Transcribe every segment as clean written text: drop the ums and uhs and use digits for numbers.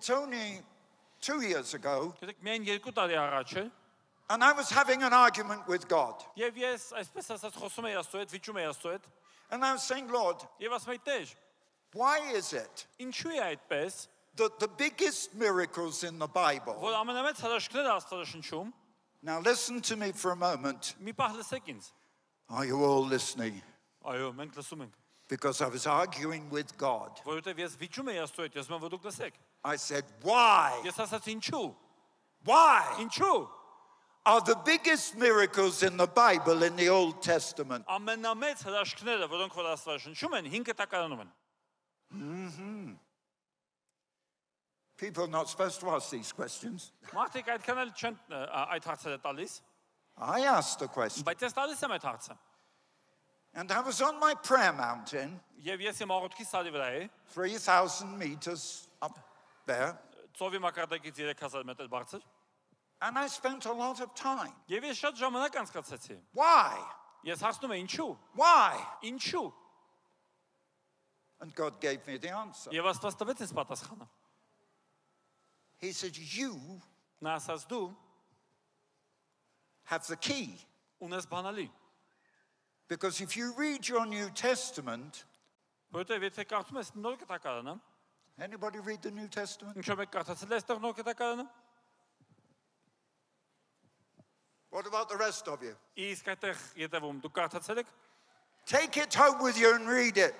It's only 2 years ago, Գիտեք, միայն 2 տարի առաջ է, and I was having an argument with God. եւ ես այսպես ասած խոսում եի Աստծո հետ, վիճում եի Աստծո հետ, And I was saying, Lord, եւ ասում եի Տեր, why is it ինչու է այդպես, that the biggest miracles in the Bible, որ ամենամեծ հրաշքները Աստվածաշնչում, now listen to me for a moment. մի պահ լսեք ինձ։ Are you all listening? Այո, մենք լսում ենք, Because I was arguing with God. որովհետեւ ես վիճում եի Աստծո հետ, ես ասում եմ, որ դուք լսեք։ I said, why? Ես ասացի ինչու։ Why Ինչու։ are the biggest miracles in the Bible in the Old Testament? Ամենամեծ հրաշքները, որոնք որ Աստվածաշնչում են, 5 տակարանում են։ People are not supposed to ask these questions. Մարդիկ այդքան էլ չեն այդ հարցերը տալիս, I asked the question. բայց ես տալիս եմ այդ հարցը։ And I was on my prayer mountain, Եվ ես իմ աղոթքի սարի վրա էի, 3,000 meters up there, ծովի մակարդակից 3000 մետր բարձր, and I spent a lot of time. եւ ես շատ ժամանակ անցկացրեցի։ Why? Ես հարցնում եմ ինչու։ Why? Ինչու։ And God gave me the answer. Եվ Աստված տվեց ինձ պատասխանը։ He said, you Նա ասաց դու have the key. ունես բանալի, Because if you read your New Testament, որովհետեւ եթե կարդում ես նոր կտակարանը, anybody read the New Testament? ինչու մեկ կարդացել ես այստեղ նոր կտակարանը, What about the rest of you? իսկ այդտեղ յետևում դուք կարդացել եք, Take it home with you and read it.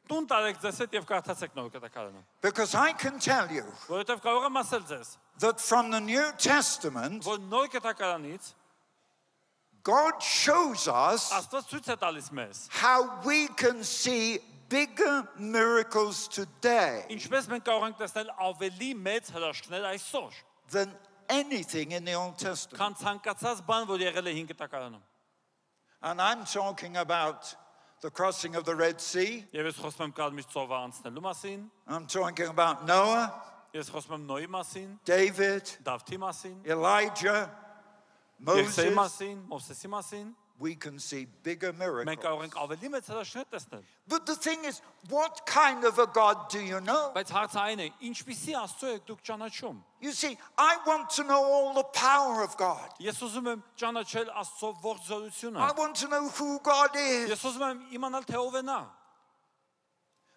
տուն տարեք ձեզ հետ եւ կարդացեք նոր կտակարանը, Because I can tell you որովհետեւ կարող եմ ասել ձեզ, that from the New Testament, որ նոր կտակարանից God shows us Աստված ցույց է տալիս մեզ, how we can see bigger miracles today ինչպես մենք կարող ենք տեսնել ավելի մեծ հրաշքներ այսօր, than anything in the Old Testament. քան ցանկացած բան, որ եղել է 5 տակարանում։ And I'm talking about the crossing of the Red Sea. Եվ ես խոսում եմ Կարմիր ծովը անցնելու մասին, I'm talking about Noah, ես խոսում եմ Նոյի մասին, David, Դավթի մասին, Elijah, Եղսեի Moses. մասին, Մովսեսի մասին, We can see bigger մենք miracles. կարող ենք ավելի մեծ հրաշքներ տեսնել։ But the thing is, what kind of a God do you know? Բայց հարցը այն է, ինչպիսի Աստծո եք դուք ճանաչում։ You see, I want to know all the power of God. Ես ուզում եմ ճանաչել Աստծո ողջ զորությունը։ I want to know who God is. Ես ուզում եմ իմանալ թե ով է նա։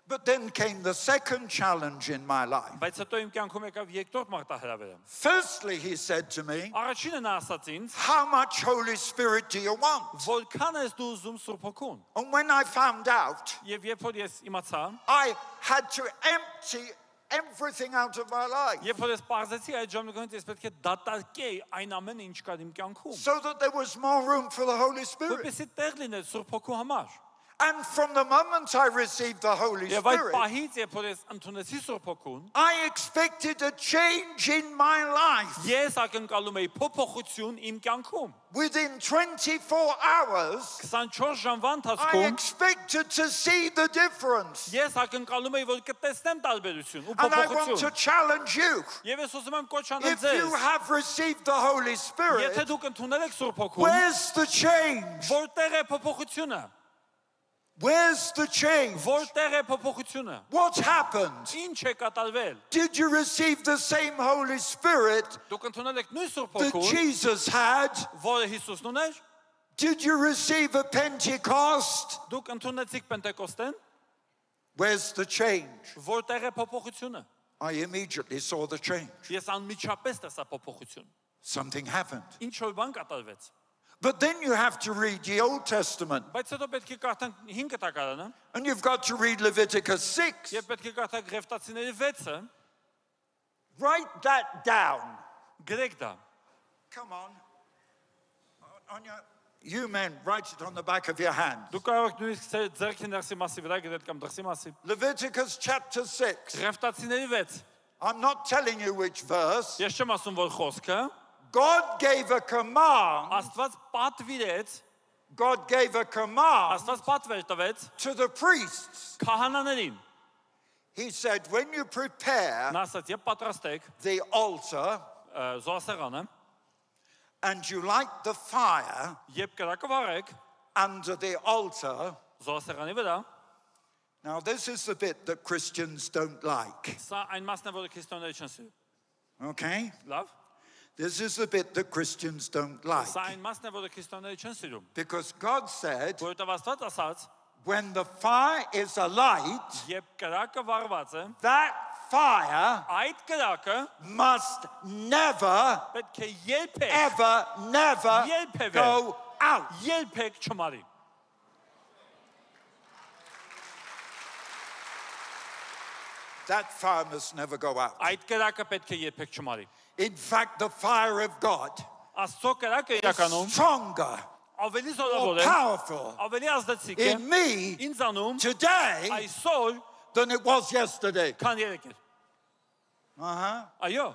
But then came the second challenge in my life. Բայց հետո իմ կյանքում եկավ երկրորդ մարտահրավերը։ Firstly, he said to me, Առաջինը նա ասաց ինձ, how much Holy Spirit do you want? որքան ես դու ուզում Սուրբ Հոգուն։ And when I found out, Եվ երբ որ ես իմացա, I had to empty everything out of my life երբ որ ես պարզեցի այդ ժամանակից ես պետք է դատարկեի այն ամենը ինչ կար իմ կյանքում, so that there was more room for the Holy Spirit. որպեսզի տեղ լիներ Սուրբ Հոգու համար։ And from the moment I received the Holy Եվ այդ Spirit, պահից երբ որ ես ընդունեցի Սուրբ Հոգուն, I expected a change in my life. ես ակնկալում էի փոփոխություն իմ կյանքում։ Within 24 hours, 24 ժամվա I ընթացքում expected to see the difference. ես ակնկալում էի որ կտեսնեմ տարբերություն ու And I want to փոփոխություն։ challenge you. Եվ ես ուզում եմ կոչ անել If you ձեզ, have received the Holy Spirit, եթե դուք ընդունել եք Սուրբ Հոգուն, where's the change? որտեղ է փոփոխությունը։ Where's the change? Որտեղ է փոփոխությունը։ What happened? Ինչ է կատարվել։ Did you receive the same Holy Spirit Դուք ընդունել եք նույն Սուրբ that Հոգուն, Jesus had? որը Հիսուսն ուներ։ Did you receive a Pentecost? Դուք ընդունեցիք Պենտեկոստեն, Where's the change? որտեղ է փոփոխությունը։ I immediately saw the change. Ես անմիջապես տեսա փոփոխություն։ Something happened. Ինչ որ բան կատարվեց։ But then you have to read the Old Testament. Բայց հետո պետք է կարդանք 5 տակարանը, And you've got to read Leviticus 6. եւ պետք է կարդանք Ղևտացիների 6-ը, Write that down. գրեք դա։ Come on. You men, write it on the back of your hand. Դուք կարող եք նույնիսկ ձեռքի ներսի մասի վրա գրել կամ դրսի մասի։ Leviticus chapter 6. Ղևտացիների 6։ I'm not telling you which verse. Ես չեմ ասում որ խոսքը, God gave a command. Աստված պատվիրեց, God gave a command Աստված պատվեր տվեց to the priests. քահանաներին։ He said, when you prepare Նա ասաց, երբ պատրաստեք the altar զոհասեղանը, and you light the fire երբ կրակը վառեք under the altar, զոհասեղանի վրա, Now, this is the bit that Christians don't like. Սա այն մասն է, որը քրիստոնյաները չեն սիրում։ Okay? Լավ։ This is the bit that Christians don't like. Սա այն մասն է, որը քրիստոնյաները չեն սիրում։ Because God said, Որովհետև Աստված ասաց, when the fire is alight, երբ կրակը վառված է, that fire այդ կրակը must never, պետք է երբեք ever, never Երբևէ. go out. երբեք չմարի։ That fire must never go out. Այդ կրակը պետք է երբեք չմարի։ In fact, the fire of God Աստծո կրակը is իրականում stronger, ավելի more զորավոր է, powerful ավելի ազդեցիկ է in me ինձանում today այսօր, than it was yesterday. քան երեկ էր։ Այո,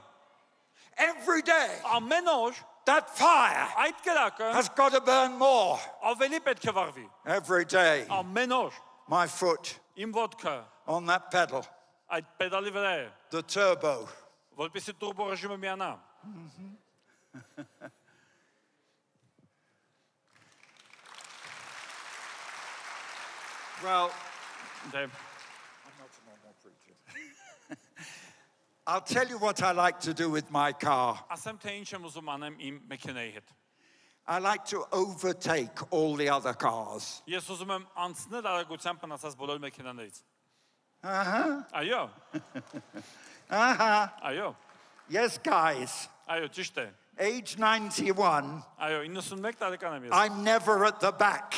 Every day, ամեն օր that fire այդ կրակը has got to burn more. ավելի պետք է վառվի։ Every day, Ամեն օր my foot իմ ոտքը on that pedal, այդ պեդալի վրա է, the turbo. որպեսզի տուրբո ռեժիմը միանա։ Well, Դե I'll tell you what I like to do with my car. ասեմ թե ինչ եմ ուզում անեմ իմ մեքենայի հետ։ I like to overtake all the other cars. Ես ուզում եմ անցնել արագությամբ մնացած բոլոր մեքենաներից։ Uh-huh. Այո, Uh-huh. այո, Yes, guys. այո, ճիշտ է։ Age 91, Այո, 91 տարեկան եմ ես։ I'm never at the back.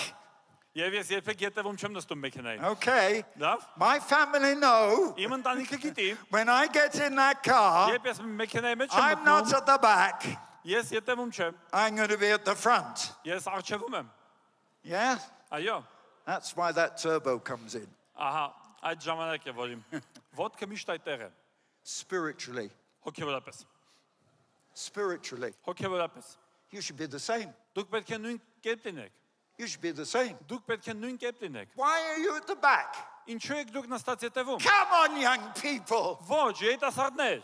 Եվ ես երբեք ետևում չեմ նստում մեքենային։ Okay. Լավ։ My family know Իմ ընտանիքը գիտի, when I get in that car, երբ ես մեքենայի մեջ եմ I'm not մտնում, at the back. ես ետևում չեմ, I'm going to be at the front. ես առջևում եմ։ Yeah? Այո, That's why that turbo comes in. ահա, այդ ժամանակ է, որ իմ ոտքը միշտ այդտեղ է, Spiritually. հոգևորապես։ Spiritually. Հոգևորապես։ You should be the same. Դուք պետք է նույն կերպ լինեք։ You should be the same. Դուք պետք է նույն կերպ լինեք։ Why are you at the back? Ինչու եք դուք նստած ետևում։ Come on, young people. Ոչ, երիտասարդներ,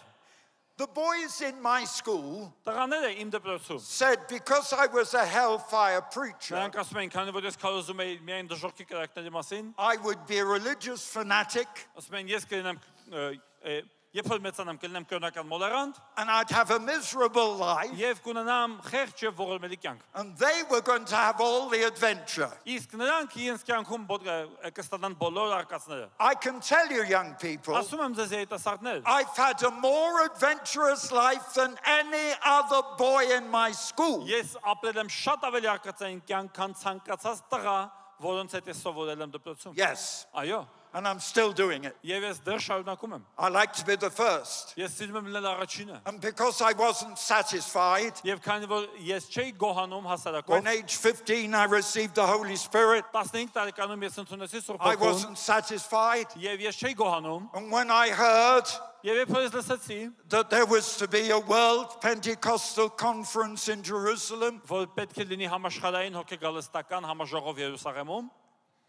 The boys in my school տղաները իմ դպրոցում։ said because I was a hellfire preacher, Նրանք ասում էին, քանի որ ես քարոզում էի միայն դժոխքի կրակների մասին, I would be a religious fanatic ասում են, ես կլինեմ երբ որ մեծանամ կլինեմ կրոնական մոլերանտ and I'd have a miserable life, եւ կունենամ խեղճ եւ ողորմելի կյանք։ and they were going to have all the adventure. Իսկ նրանք իրենց կյանքում կստանան բոլոր արկածները։ I can tell you, young people, Ասում եմ ձեզ երիտասարդներ, I've had a more adventurous life than any other boy in my school. ես ապրել եմ շատ ավելի արկածային կյանք, քան ցանկացած տղա, որոնց հետ ես սովորել եմ դպրոցում։ Yes, Այո, and I'm still doing it. եւ ես դեռ շարունակում եմ։ I like to be the first. Ես սիրում եմ լինել առաջինը։ And because I wasn't satisfied, Եվ քանի որ ես չէի գոհանում when հասարակով, age 15 I received the Holy Spirit, 15 տարեկանում ես ընդունեցի Սուրբ I Հոգուն, wasn't satisfied. եւ ես չէի գոհանում, And when I heard եւ երբ ես լսեցի, that there was to be a world Pentecostal conference in Jerusalem, որ պետք է լինի համաշխարհային հոգեգալստական համաժողով Երուսաղեմում,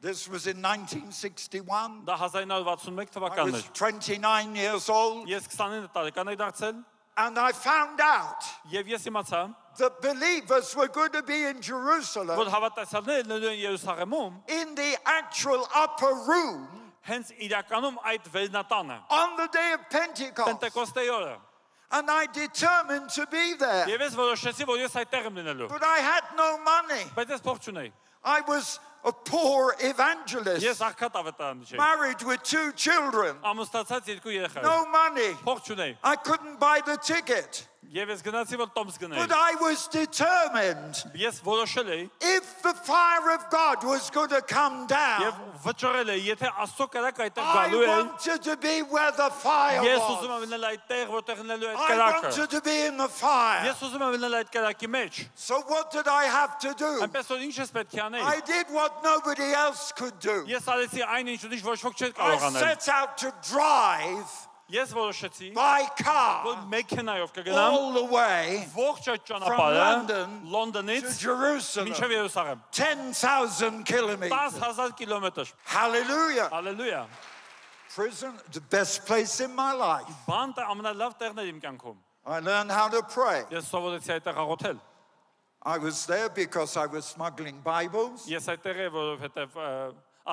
this was in 1961. դա 1961 I թվականն was էր։ 29 years old, Ես 29 տարեկան եմ դարձել, and I found out եւ ես իմացա, that believers were going to be in որ Jerusalem հավատացյալները լինելու են Երուսաղեմում, in the actual upper room հենց իրականում այդ վերնատանը, on the day of Pentecost. Պենտեկոստեի օրը։ And I determined to be there. Եվ ես որոշեցի, որ ես այդտեղ եմ լինելու։ But I had no money. Բայց ես փող չունեի։ I was a poor evangelist, Ես աղքատ ավետարան չէի։ married with 2 children, Ամուսնացած երկու երեխա։ no money. Փող չունեի։ I couldn't buy the ticket. Եվ ես գնացի, որ տոմս գնայի։ But I was determined. Ես որոշել էի If the fire of God was going to come եւ down, վճռել էի, եթե Աստծո կրակը այդտեղ I գալու է, wanted to be where the fire ես ուզում was. եմ լինել այդտեղ, որտեղ լինելու է այդ I կրակը։ wanted to be in the fire. Ես ուզում եմ լինել այդ կրակի մեջ։ So what did I have to do? Այնպես որ ինչ ես պետք է անել։ I did what nobody else could do. Ես արեցի այն ինչ ոչ ոք չէր I կարող անել։ set out to drive Ես որոշեցի, by որ car մեքենայով կգնամ all the way ողջ այդ from ճանապարհը London Լոնդոնից to Jerusalem. մինչև Երուսաղեմ։ 10,000 kilometers. 10,000 կիլոմետր։ Hallelujah. Հալելույա։ Prison, the best place in my life. Բանտը ամենալավ տեղն էր իմ կյանքում։ I learned how to pray. Ես սովորեցի այդտեղ աղոթել։ I was there because I was smuggling Bibles. Ես այդտեղ եմ, որովհետև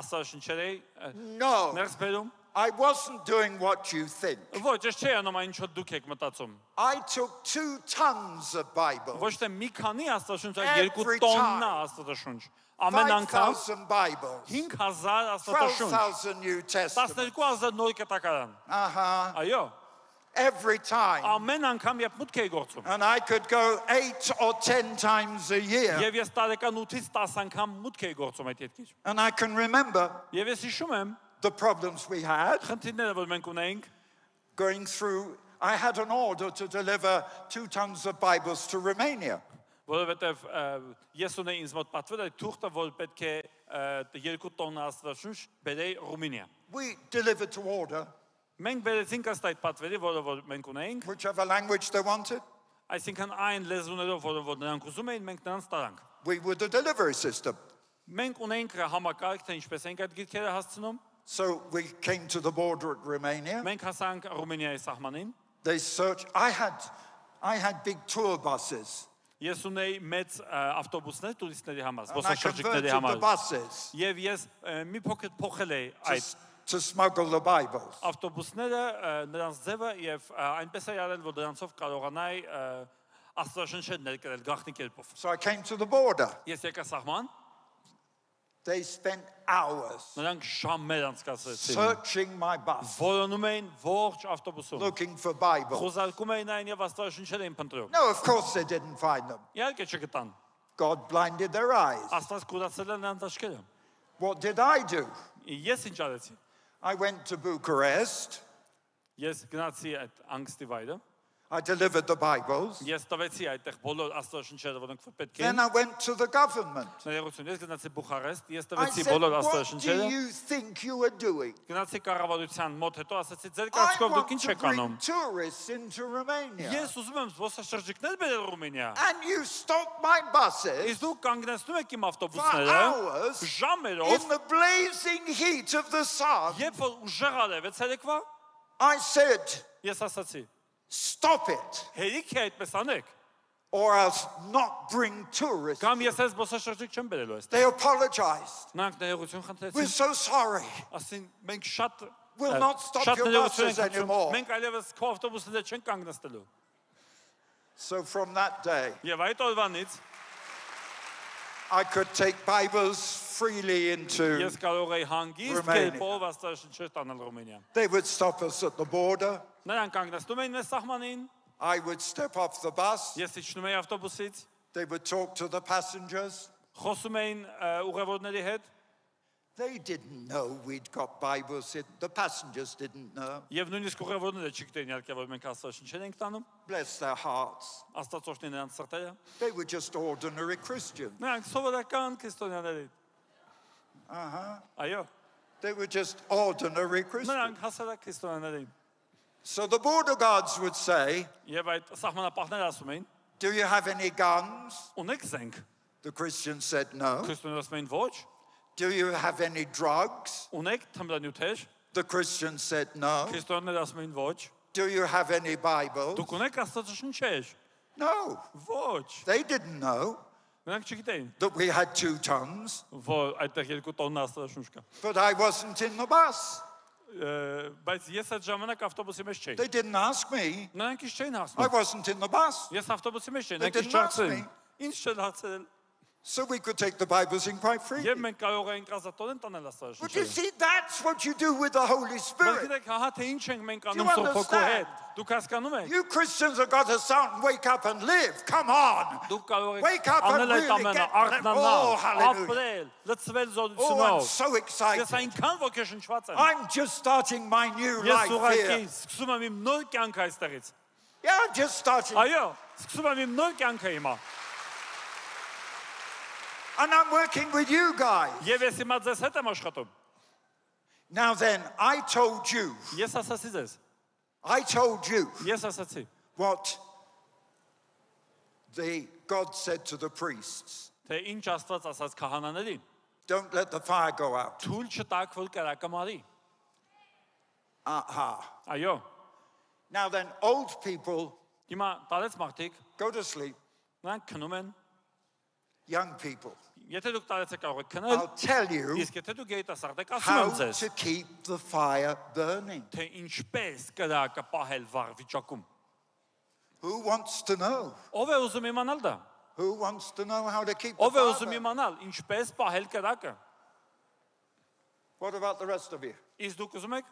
աստվածաշնչերի No, ներսբերում։ I wasn't doing what you think. Ոչ, ես չի անում այն ինչ դուք եք մտածում։ I took 2 tons of Bible, Ոչ թե մի քանի աստվածաշունչ, այլ Every 2 տոննա աստվածաշունչ։ Ամեն անգամ 5,000 Bibles, 5000 աստվածաշունչ, 12,000 New Testament. 12000 նոր կտակարան։ Այո, Every time. ամեն անգամ երբ մուտք էի գործում։ And I could go 8 or 10 times a year. Եվ ես տարեկան 8-ից 10 անգամ մուտք էի գործում այդ ետքից։ And I can remember Եվ ես հիշում եմ the problems we had խնդիրները, որ մենք ունեինք, going through. I had an order to deliver 2 tons of Bibles to Romania. որովհետև ես ունեի ինձ մոտ պատվել այդ թուղթը, որ պետք է 2 տոննա աստվածաշունչ բերեի Ռումինիա։ We delivered to order, Մենք բերեցինք ըստ այդ պատվերի, որը մենք ունեինք, whichever language they wanted. այսինքն այն լեզուներով, որ նրանք ուզում էին, մենք նրանց տարանք։ We were the delivery system. Մենք ունեինք համակարգ, թե ինչպես ենք այդ գիրքերը հասցնում։ So we came to the border at Romania. Մենք հասանք Ռումինիայի սահմանին։ They searched. I had big tour buses. Ես ունեի մեծ ավտոբուսներ տուրիստների համար, And I զբոսաշրջիկների converted the համար։ buses Եվ ես մի փոքր փոխել էի այդ to smuggle the Bibles. ավտոբուսները, նրանց ձևը եւ այնպես է արել, որ դրանցով կարողանայի աստվածաշունչը ներկրել գաղտնի կերպով։ So I came to the border. Ես եկա սահման, They spent hours նրանք ժամեր անցկացրեցին։ searching my bus, Որոնում էին ողջ ավտոբուսում։ looking for Bibles. Խոզարկում էին այն եւ աստվածաշունչեր էին փնտրում։ No, of course they didn't find them. Իհարկե չգտան։ God blinded their eyes. Աստված կուրացել է նրանց աչքերը։ What did I do? Ես ինչ արեցի։ I went to Bucharest. Ես գնացի այդ անգստի վայրը։ I delivered the Bibles. Ես տվեցի այդտեղ բոլոր աստվածաշունչերը, որոնք պետք Then էին։ I went to the government. Ներողություն, ես գնացի Բուխարեստ, ես I տվեցի said, բոլոր what do աստվածաշունչերը։ you think you are doing? Գնացի կառավարության մոտ, հետո ասացի, ձեր I կարծիքով դուք want ինչ to եք bring անում։ tourists into Romania. Ես ուզում եմ զբոսաշրջիկներ բերել Ռումինիա։ And you stop my buses Իսկ դուք կանգնեցնում եք իմ for ավտոբուսները hours ժամերով, in the blazing heat of the sun. երբ որ ուժեղ արևեց երեկվա, I said, ես ասացի, stop it, հերիք է այդպես անեք, or else not bring tourists. կամ ես այս զբոսաշրջիկ չեմ բերելու այստեղ։ They apologized. Նրանք ներողություն We're խնդրեցին, so sorry. ասին մենք շատ We'll not stop շատ your ներողություն buses ենք խնդրում, anymore. մենք այլևս քո ավտոբուսները չենք կանգնեցնելու։ So from that day, Եվ այդ օրվանից I could take Bibles freely into. ես կարող էի հանգիստ Romania. կերպով աստվածաշունչեր տանել Ռումինիա։ They would stop us at the border. Նրանք կանգնեցնում էին մեզ սահմանին, I would step off the bus. ես իջնում էի ավտոբուսից, They would talk to the passengers. խոսում էին ուղևորների հետ, They didn't know we'd got Bibles. The passengers didn't know. եւ նույնիսկ ուղևորները չգիտեին իհարկե որ մենք աստվածաշունչեր ենք տանում, Bless their hearts. աստվածօրհնի նրանց սրտերը։ They were just ordinary Christians. Նրանք սովորական քրիստոնյաներ էին։ Այո, They were just ordinary Christians. նրանք հասարակ քրիստոնյաներ էին։ So the border guards would say, Եվ այդ սահմանապահները ասում էին, do you have any guns? ունեք զենք։ The Christians said no. Քրիստոնյաները ասում էին ոչ, Do you have any drugs? ունեք թմրանյութեր։ The Christians said no. Քրիստոնյաները ասում էին ոչ, Do you have any Bibles? դուք ունեք աստվածաշունչեր։ No. Ոչ, They didn't know նրանք չգիտեին, that we had 2 tons, որ այդտեղ 2 տոննա աստվածաշունչ կա։ but I wasn't in the bus. Բայց ես այդ ժամանակ ավտոբուսի մեջ չէի։ They didn't ask me. Նրանք ինչ չէին I հասնում։ wasn't in the bus. Ես ավտոբուսի մեջ չէի, They նրանք ինչ didn't ask չհասցրին։ me. Ինչ չեն հասցրել։ So we could take the Bibles in quite freely. Եվ մենք կարող էինք ազատորեն տանել But you աստվածաշունչը։ see, that's what you do with the Holy Բայց Spirit. գիտեք, հա թե ինչ ենք մենք Do անում you Սուրբ Հոգու հետ։ understand? Դուք հասկանում եք։ You Christians have got to start and wake up and live. Come on. Դուք կարող Wake եք up and անել այդ really ամենը, get- արթնանալ, Oh, hallelujah. ապրել, լցվել Oh, I'm զորությունով։ so Ես excited. այնքան ոգեշնչված եմ։ I'm just starting my new Ես life ուղղակի here. սկսում եմ իմ նոր կյանքը այստեղից։ Yeah, I'm just starting. Այո, սկսում եմ իմ նոր կյանքը հիմա։ And I'm working with you guys. Եվ ես հիմա ձեզ հետ եմ աշխատում։ Now then, I told you Ես ասացի ձեզ, ես ասացի, what God said to the priests. թե ինչ Աստված ասաց քահանաներին, Don't let the fire go out. թույլ չտաք, որ կրակը մարի։ Aha. Այո, Now then, old people հիմա տարեց մարդիկ, go to sleep. նրանք քնում են, young people, Եթե դուք տարեցեք կարող եք քնել, I'll tell you իսկ եթե դուք երիտասարդ եք, ասում how եմ ձեզ, to keep the fire burning. թե ինչպես կրակը պահել վառ վիճակում։ Who wants to know? Ով է ուզում իմանալ դա։ Who wants to know how to keep the Ով է fire ուզում burning? իմանալ ինչպես պահել կրակը։ What about the rest of you? Իսկ դուք ուզում եք։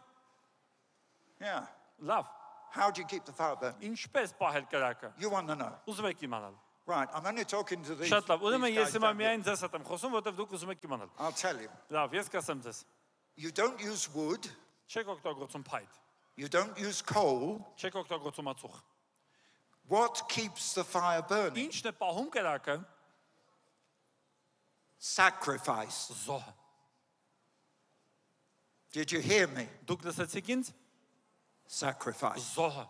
Yeah. Լավ, How do you keep the fire burning? ինչպես պահել կրակը։ You want to know. Ուզում եք իմանալ։ Right, I'm only talking to these, Շատ լավ, ուրեմն these ես guys հիմա down here. միայն ձեզ հետ եմ խոսում, որովհետև դուք ուզում եք իմանալ։ I'll tell you. Լավ, ես կասեմ ձեզ։ You don't use wood. Չեք օգտագործում փայտ, You don't use coal. չեք օգտագործում ածուխ։ What keeps the fire burning? Ինչն է պահում կրակը։ Sacrifice. Զոհը։ Did you hear me? Դուք լսեցիք ինձ։ Sacrifice. Զոհը,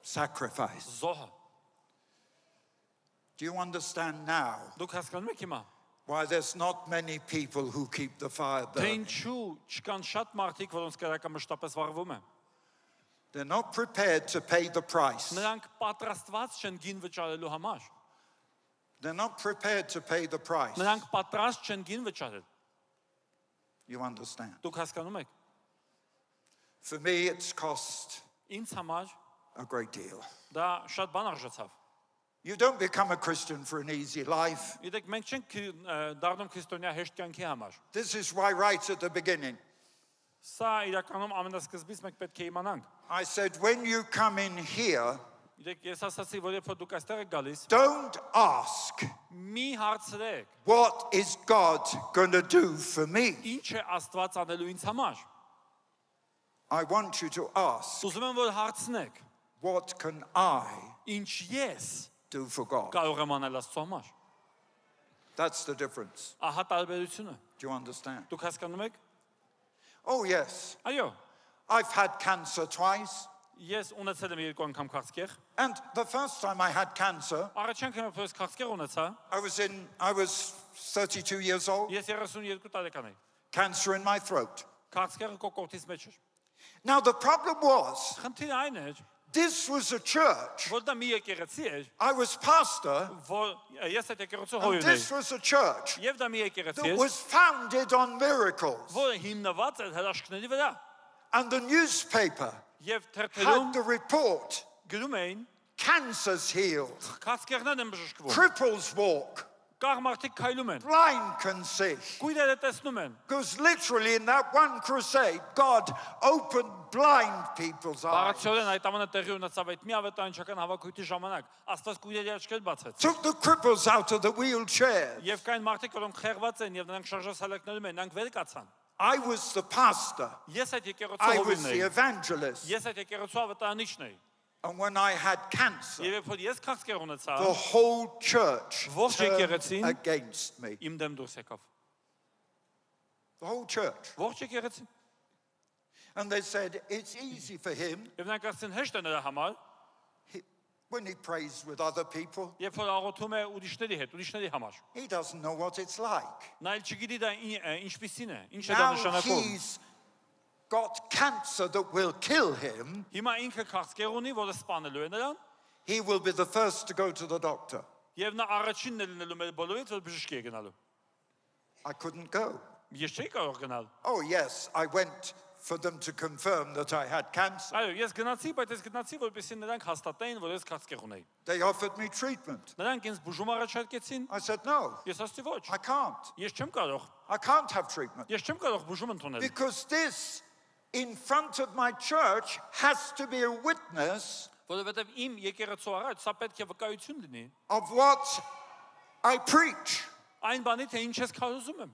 Sacrifice. զոհը։ Do you understand now Դուք հասկանում եք հիմա, why there's not many people who keep the fire թե burning? ինչու չկան շատ մարդիկ, որոնց կրակը մշտապես վառվում է։ They're not prepared to pay the price. Նրանք պատրաստված չեն գին վճարելու համար։ They're not prepared to pay the price. Նրանք պատրաստ չեն գին վճարել։ You understand? Դուք հասկանում եք։ For me, it's cost Ինձ համար a great deal. դա շատ բան արժացավ։ You don't become a Christian for an easy life. Գիտեք, մենք չենք դառնում քրիստոնյա հեշտ կյանքի համար։ This is why right at the beginning, Սա իրականում ամենասկզբից մենք պետք է իմանանք։ I said, when you come in here, Գիտեք, ես ասացի, որ երբ որ դուք այստեղ եք գալիս, don't ask, մի հարցրեք, what is God going to do for me? ինչ է Աստված անելու ինձ համար։ I want you to ask, Ուզում եմ որ հարցնեք, what can I ինչ ես do for God? կարող եմ անել Աստծո համար։ That's the difference. Ահա տարբերությունը։ Do you understand? Դուք հասկանում եք։ Oh, yes. Այո, I've had cancer twice. ես ունեցել եմ երկու անգամ քաղցկեղ։ And the first time I had cancer, Առաջին անգամ ես քաղցկեղ ունեցա, I was 32 years old, ես 32 տարեկան էի։ cancer in my throat. Քաղցկեղը կոկորդից մեջ էր։ Now, the problem was, Խնդիրը այն էր, this was a church. որ դա մի եկեղեցի էր, I was pastor, որ ես այդ եկեղեցու and հորին this էի։ was a church Եվ դա մի եկեղեցի that էր, was founded on miracles. որը հիմնված էր հրաշքների վրա։ And the newspaper Եվ had թերթերում the report, գրում էին, cancer's healed, քաղցկեղներն են բժշկվում, cripples walk, կաղ մարդիկ քայլում են, blind can see. կույրերը տեսնում են։ Because literally in that one crusade, God opened blind people's eyes. Բառացիորեն այդ ամենը տեղի ունեցավ այդ մի ավետարանչական հավաքույթի ժամանակ, Աստված կույրերի աչքեր բացեց։ Took the cripples out of the wheelchair. Եվ կային մարդիկ, որոնք խեղված են եւ նրանք շարժասալակներում են, նրանք վեր կացան։ I was the pastor. Ես այդ եկեղեցու I was հովիվն the էի։ evangelist. Ես այդ եկեղեցու ավետարանիչն էի։ And when I had cancer, Եվ երբ որ ես քաղցկեղ ունեցա, the whole church Ողջ turned եկեղեցին against me. իմ դեմ դուրս եկավ։ The whole church. Ողջ եկեղեցին։ And they said, it's easy for him Եվ նրանք ասեցին հեշտ է նրա համար, when he prays with other people. երբ որ աղոթում է ուրիշների հետ, ուրիշների համար։ He doesn't know what it's like. Նա էլ չգիտի դա ինչպիսին է, ինչ է դա Now նշանակում։ he's got cancer that will kill him. Հիմա ինքը քաղցկեղ ունի, որը սպանելու է նրան, He will be the first to go to the doctor. եւ նա առաջինն է լինելու մեր բոլորից, որ բժշկի է գնալու։ I couldn't go. Ես չէի կարող գնալ։ Oh, yes, I went for them to confirm that I had cancer. Այո, ես գնացի, բայց ես գնացի, որպեսզի նրանք հաստատեին, որ ես քաղցկեղ ունեի։ They offered me treatment. Նրանք ինձ բուժում առաջարկեցին, I said, no, ես ասացի ոչ։ I can't. Ես չեմ կարող։ I can't have treatment. Ես չեմ կարող բուժում ընդունել։ Because this, in front of my church, has to be a witness Որովհետև իմ եկեղեցու առաջ սա պետք է վկայություն լինի of what I preach. այն բանի, թե ինչ ես քարոզում եմ։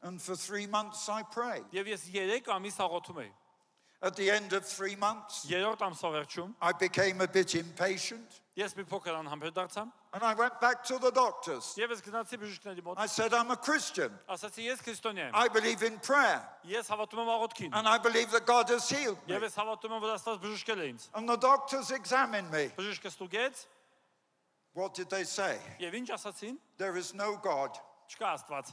And for 3 months I prayed. Եվ ես 3 ամիս աղոթում էի։ At the end of 3 months, Երրորդ ամսվա վերջում I became a bit impatient. ես մի փոքր անհամբեր դարձա And I went back to the doctors. եւ ես գնացի բժիշկների մոտ։ I said, I'm a Christian. Ասացի ես քրիստոնյա եմ։ I believe in prayer. Ես հավատում եմ աղոթքին։ And I believe that God has healed me. Եվ ես հավատում եմ, որ Աստված բժշկել է ինձ։ And the doctors examined me. Բժիշկը ստուգեց What did they say? եւ ինչ ասացին։ There is no God. Չկա Աստված։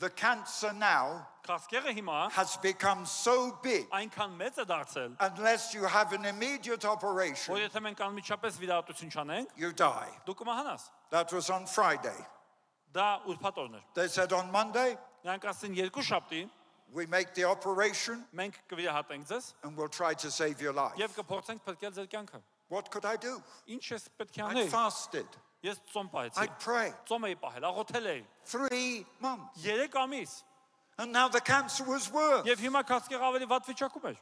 The cancer now Քաղցկեղը հիմա has become so big, այնքան մեծ է դարձել, unless you have an immediate operation, որ եթե մենք անմիջապես վիրահատություն չանենք, you die. դու կմահանաս։ That was on Friday. Դա ուրբաթ օրն էր։ They said on Monday, Նրանք ասին երկու շաբթի we make the operation մենք կվիրահատենք ձեզ and we'll try to save your life. եւ կփորձենք փրկել ձեր կյանքը։ What could I do? Ինչ ես պետք է I անել։ fasted. Ես ծոմ պահեցի։ I'd pray. Ծոմ էի պահել, աղոթել էի 3 months. 3 ամիս։ And now the cancer was worse. Եվ հիմա քաղցկեղը ավելի վատ վիճակում էր։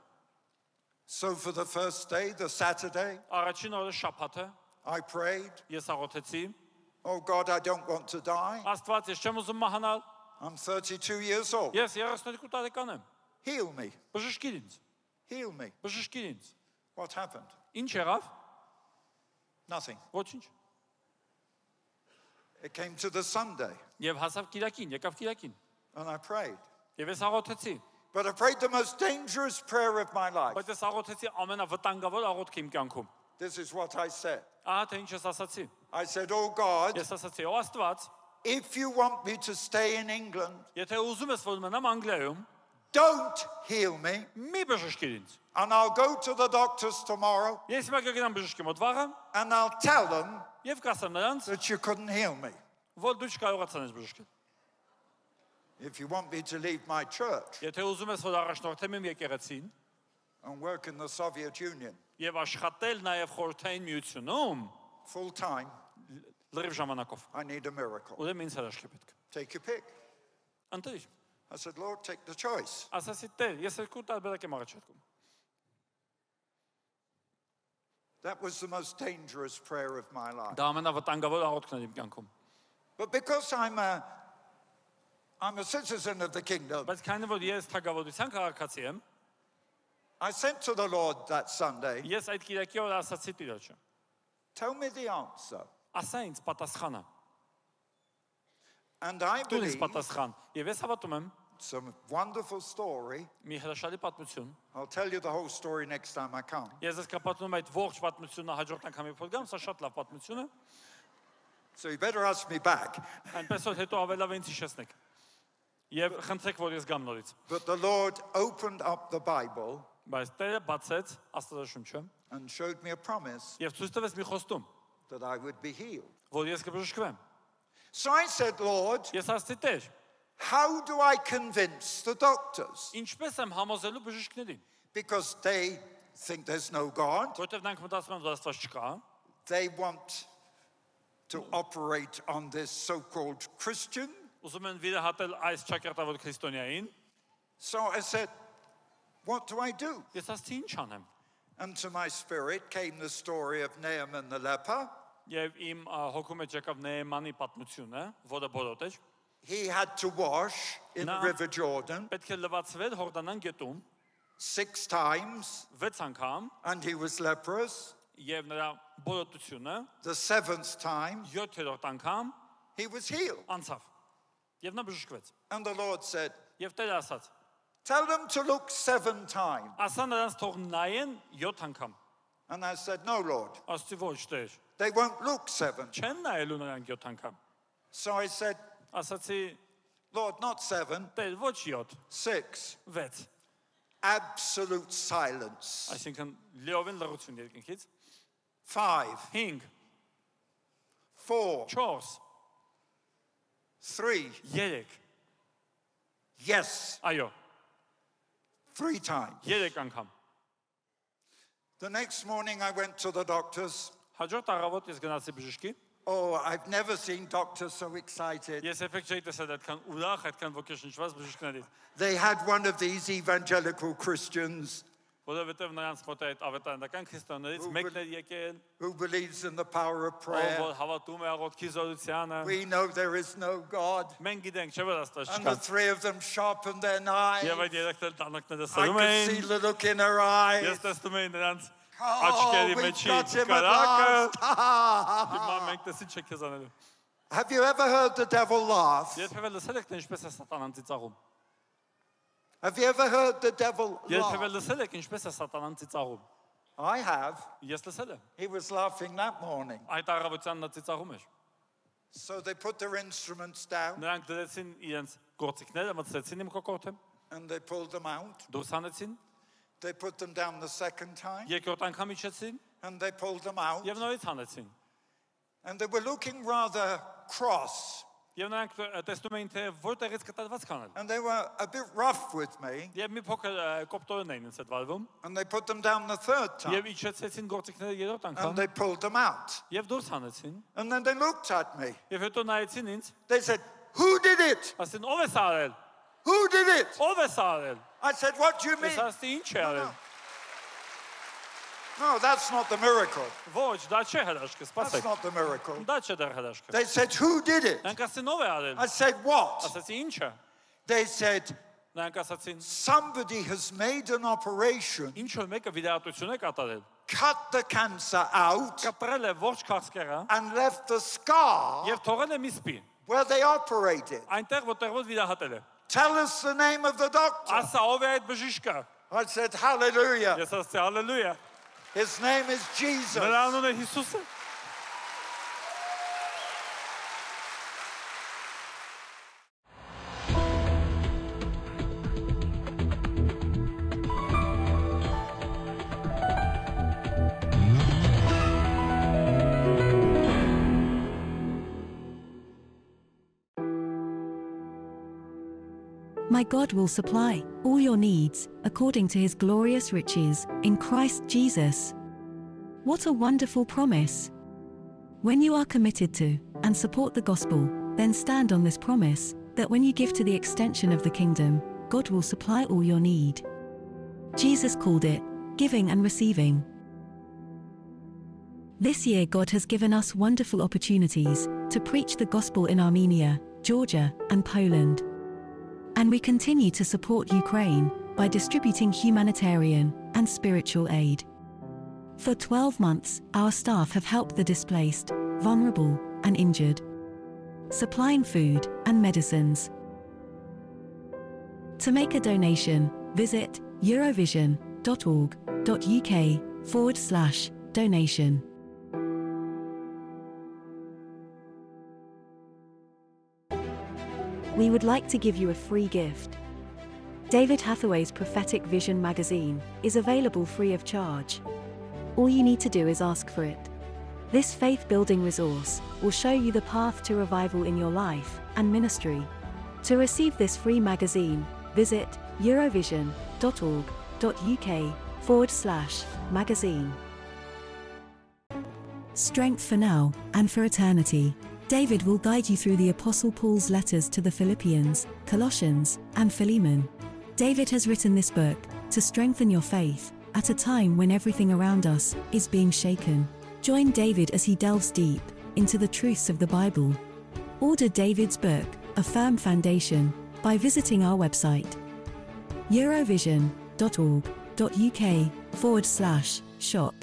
So for the first day, the Saturday, Առաջին օրը շաբաթը I prayed, ես աղոթեցի, oh God, I don't want to die. Աստված, ես չեմ ուզում մահանալ։ I'm 32 years old. Ես 32 տարեկան եմ։ Heal me. Բժշկիր ինձ։ Heal me. Բժշկիր ինձ։ What happened? Ինչ եղավ։ Nothing. Ոչինչ։ It came to the Sunday Եվ հասավ Կիրակին, եկավ Կիրակին։ and I prayed. Եվ ես աղոթեցի։ But I prayed the most dangerous prayer of my life. Բայց ես աղոթեցի ամենավտանգավոր աղոթքը իմ կյանքում։ This is what I said. Ահա թե ինչ ես ասացի։ I said, oh God, Ես ասացի, ո Աստված, if you want me to stay in England, եթե ուզում ես որ մնամ Անգլիայում, don't heal me. մի բժշկիր ինձ։ And I'll go to the doctors tomorrow Ես հիմա կգնամ բժշկի մոտ վաղը and I'll tell them եւ կասեմ նրանց, that you couldn't heal me. որ դու չկարողացան ես բժշկել։ If you want me to leave my church Եթե ուզում ես որ առաջնորդեմ իմ եկեղեցին and work in the Soviet Union եւ աշխատել նաեւ խորհրդային միությունում full time, լրիվ ժամանակով, I need a miracle. ուրեմն ինձ հրաշք է պետք։ Take your pick. Ընտրիր։ I said, Lord, take the choice. Ասացի Տեր, ես երկու տարբերակ եմ առաջարկում։ That was the most dangerous prayer of my life. Դա ամենավտանգավոր աղոթքն է իմ կյանքում։ But because I'm a citizen of the kingdom, Բայց քանի որ ես թագավորության քաղաքացի եմ, I sent to the Lord that Sunday, ես այդ Կիրակի օրը ասացի Տիրոջը, tell me the answer. ասա ինձ պատասխանը։ And I Դու ինձ believe պատասխան։ Եվ ես հավատում եմ it's a wonderful story. մի հրաշալի պատմություն։ I'll tell you the whole story next time I come. Ես ես կապատում այդ ողջ պատմությունը հաջորդ անգամ երբ որ գամ, սա շատ լավ պատմություն է։ So you better ask me back. Այնպես որ հետո ավելավ ինձ հիշեցնեք։ Եվ խնդրեք, որ ես գամ նորից։ But the Lord opened up the Bible Բայց Տերը բացեց Աստվածաշունչը and showed me a promise եւ ցույց տվեց մի խոստում, that I would be healed. որ ես կբժշկվեմ։ So I said, Lord, Ես ասացի Տեր, how do I convince the doctors? ինչպես եմ համոզելու բժիշկներին, Because they think there's no God. որովհետեւ նրանք մտածում են, որ Աստված չկա, They want to operate on this so-called Christian. ուզում են վիրահատել այս ճակատավոր քրիստոնյային։ So I said, what do I do? Ես ասացի ինչ անեմ։ And to my spirit came the story of Naaman the leper. Եվ իմ հոգու մեջ եկավ Նեեմանի պատմությունը, որը բոլոտ էր։ He had to wash in the Now- River Jordan Պետք է լվացվել Հորդանան գետում 6 times 6 անգամ and he was leprous. եւ նրա բոլոտությունը The 7th time 7-րդ անգամ he was healed. անցավ։ Եվ նա բժշկվեց։ And the Lord said, Եվ Տերը ասաց. tell them to look 7 times. Ասա նրանց թող նայեն 7 անգամ։ And I said, no, Lord, Ասացի ոչ Տեր։ they won't look 7. Չեն նայելու նրանք 7 անգամ։ So I said, Ասացի Lord, not 7, Տեր ոչ 7, 6. 6։ Absolute silence. Այսինքն լիովին լռություն երկնքից։ 5, 5, 4, 4, 3. 3։ Yes, Այո, 3 times. 3 անգամ։ The next morning I went to the doctors. Հաջորդ առավոտ ես գնացի բժշկի։ Oh, I've never seen doctors so excited. Ես երբեք չէի տեսել այդքան ուրախ, այդքան ոգեշնչված բժիշկներից, They had one of these evangelical Christians որովհետև նրանց մոտ այդ ավետարանական քրիստոնեներից մեկն էր եկել, who believes in the power of ով prayer. որ հավատում է աղոթքի զորությանը։ We know there is no God. Մենք գիտենք, չէ՞ որ Աստված And the չկա։ 3 of them sharpened their knives. Եվ այդ երեքն տանակները I սրում could see էին։ the look in her eyes. Ես տեսնում էի նրանց Oh, աչքերի we've մեջի got him at կարակը։ last. Հիմա մենք տեսի չեք քեզ անելու։ Have you ever heard the devil laugh? Երբևէ լսել եք թե ինչպես է սատանան ծիծաղում։ Have you ever heard the devil Երբևէ laugh? լսել եք ինչպես է սատանան ծիծաղում։ I have. Ես լսել եմ։ He was laughing that morning. Այդ առավոտյան նա ծիծաղում էր։ So they put their instruments down Նրանք դրեցին իրենց գործիքները մտցրեցին իմ կոկորդը, and they pulled them out. դուրս հանեցին, They put them down the second time, երկրորդ անգամ իջեցին and they pulled them out. եւ նորից հանեցին։ And they were looking rather cross, Եվ նրանք տեսնում էին թե որտեղից կտրված կանել։ and they were a bit rough with me, Եվ մի փոքր կոպտորեն էին ինձ հետ վարվում, and they put them down the third time, եւ իջեցեցին գործիքները երրորդ and անգամ they pulled them out. եւ դուրս հանեցին։ And then they looked at me. Եվ հետո նայեցին ինձ, They said, "Who did it? ասին ով է սա արել։ Who did it?" Ով է սա արել։ I said, "What do you mean?" Ես ասի ինչ է արել։ No, that's not the miracle. Ոչ, դա չէ հրաշքը, That's սպասեք։ not the miracle. Դա չէ դեռ հրաշքը։ They said, "Who did it?" Նրանք ասին ով է արել։ I said, "What?" Ասացի ինչը։ They said, Նրանք ասացին "Somebody has made an operation, ինչ որ մեկը վիրահատություն է կատարել։ cut the cancer out, Կապրել է ողջ քաղցկեղը and left the scar եւ թողել է մի սպի։ where they operated. Այնտեղ որտեղ որ վիրահատել է։ Tell us the name of the doctor." Ասա ով է այդ բժիշկը։ I said, "Hallelujah." Ես ասացի հալելույա։ His name is Jesus. Նրա անունը Հիսուս է։ My God will supply all your needs according to his glorious riches in Christ Jesus. What a wonderful promise! When you are committed to and support the gospel, then stand on this promise that when you give to the extension of the kingdom, God will supply all your need. Jesus called it giving and receiving. This year, God has given us wonderful opportunities to preach the gospel in Armenia, Georgia, and Poland. And we continue to support Ukraine by distributing humanitarian and spiritual aid. For 12 months, our staff have helped the displaced, vulnerable, and injured, supplying food and medicines. To make a donation, visit eurovision.org.uk/donation. We would like to give you a free gift. David Hathaway's Prophetic Vision magazine is available free of charge. All you need to do is ask for it. This faith-building resource will show you the path to revival in your life and ministry. To receive this free magazine, visit eurovision.org.uk/magazine. Strength for now and for eternity. David will guide you through the Apostle Paul's letters to the Philippians, Colossians, and Philemon. David has written this book to strengthen your faith at a time when everything around us is being shaken. Join David as he delves deep into the truths of the Bible. Order David's book, A Firm Foundation, by visiting our website, eurovision.org.uk/shop.